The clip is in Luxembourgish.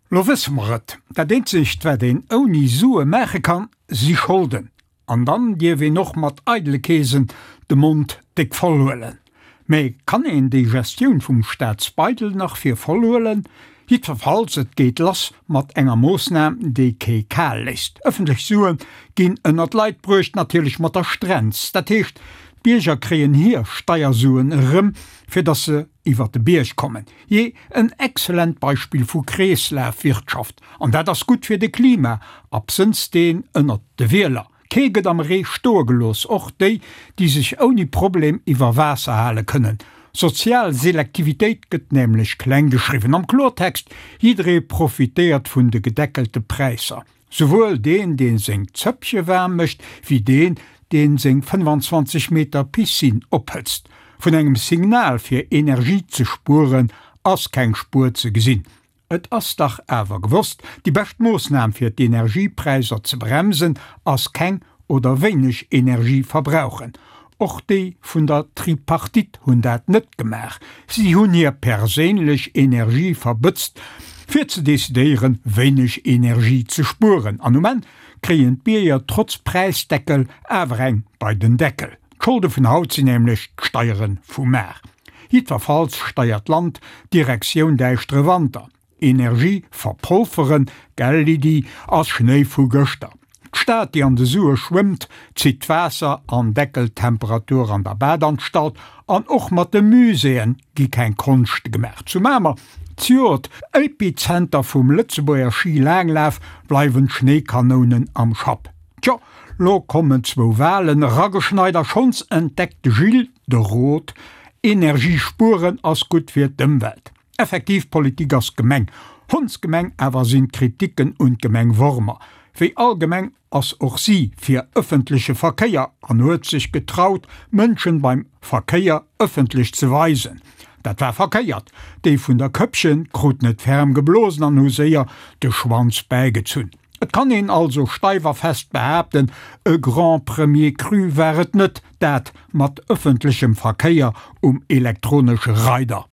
Lo wësse mer et, dat eenzegt wat een ouni Sue maache kann, si Scholden. An dann dierf een och mat eidele Keesen de Mond déck voll huelen. Mä kann een déi Gestioun vum Staatsbeidel nach fir voll huelen? Jiddwerfalls, et geet lass mat enger Moossnam, déi kee kal léisst. Ëffentlech Sue ginn ënner d'Leit bruecht, natierlech mat der Strenz. Dat heescht, d'Bierger kréien hir Steiersuen erëm, fir datt se iwwer de Bierg kommen. Jee, en excellent Beispill vu Kreeslafwirtschaft. An dat ass gutt fir de Klima, absënns deen ënnert de Wieler. Kee gëtt am Ree stoe gelooss, och déi, déi sech ouni Problem iwwer Waasser hale kënnen. Sozial Selektivitéit gëtt nämlech kleng geschriwwen. Am Klortext, jidderee profitéiert vun de gedeckelte Präisser. Souwuel deen, dee seng Zëppche waarm mécht, wéi deen, dee seng 25 Meter Piscine ophëtzt. Vun engem Signal fir Energie ze spueren ass keng Spuer ze gesinn. Et ass dach awer gewosst, déi bescht Moossnam fir d'Energiepräisser ze bremsen ass keng oder wéineg Energie verbrauchen. Och déi vun der Tripartite hunn dat net gemaach. Si hunn hir perséinlech Energie verbëtzt, fir ze decidéieren, wéineg Energie ze spueren. An um Enn kréien d'Bierger trotz Präisdeckel awer eng bei den Deckel. D'Scholde vun haut sinn nämlech d'Steiere vu mar. Jiddwerfalls steiert d'Land Direktioun däischtere Wanter. Energie verpolferen, gell Lydie, ass Schnéi vu gëschter. D'Stad, déi an de Sue schwëmmt, zitt d'Waasser an deckelt d'Temperatur an der Badanstalt. An och mat de Muséeën gi keng Konschte gemaach. Zu Mamer, z'Joert Epizenter vum Lëtzebuerger Schi-Laanglaf, bleiwen d'Schnéikanounen am Schapp. Tjo, lo kommen zwou Walen erageschneit a schonns entdeckt de Gilles de Rot, Energie spueren ass gutt fir d'Ëmwelt. Effektiv, Politik ass Gemeng. Hondsgemeng awer sinn d'Kritiken un d'Gemeng Wormer. Wéi all Gemeng ass och si fir ëffentleche Verkéier an huet sech getraut, Mënschen beim Verkéier ëffentlech ze weisen. Dat war verkéiert. Déi vun der Këppchen kruten et ferm geblosen an hu séier de Schwanz bäigezunn. Et kann een also steif a fest behaapten, e Grand Premier Cru war et net, dat mat ëffentlechem Verkéier um elektronesche Reider.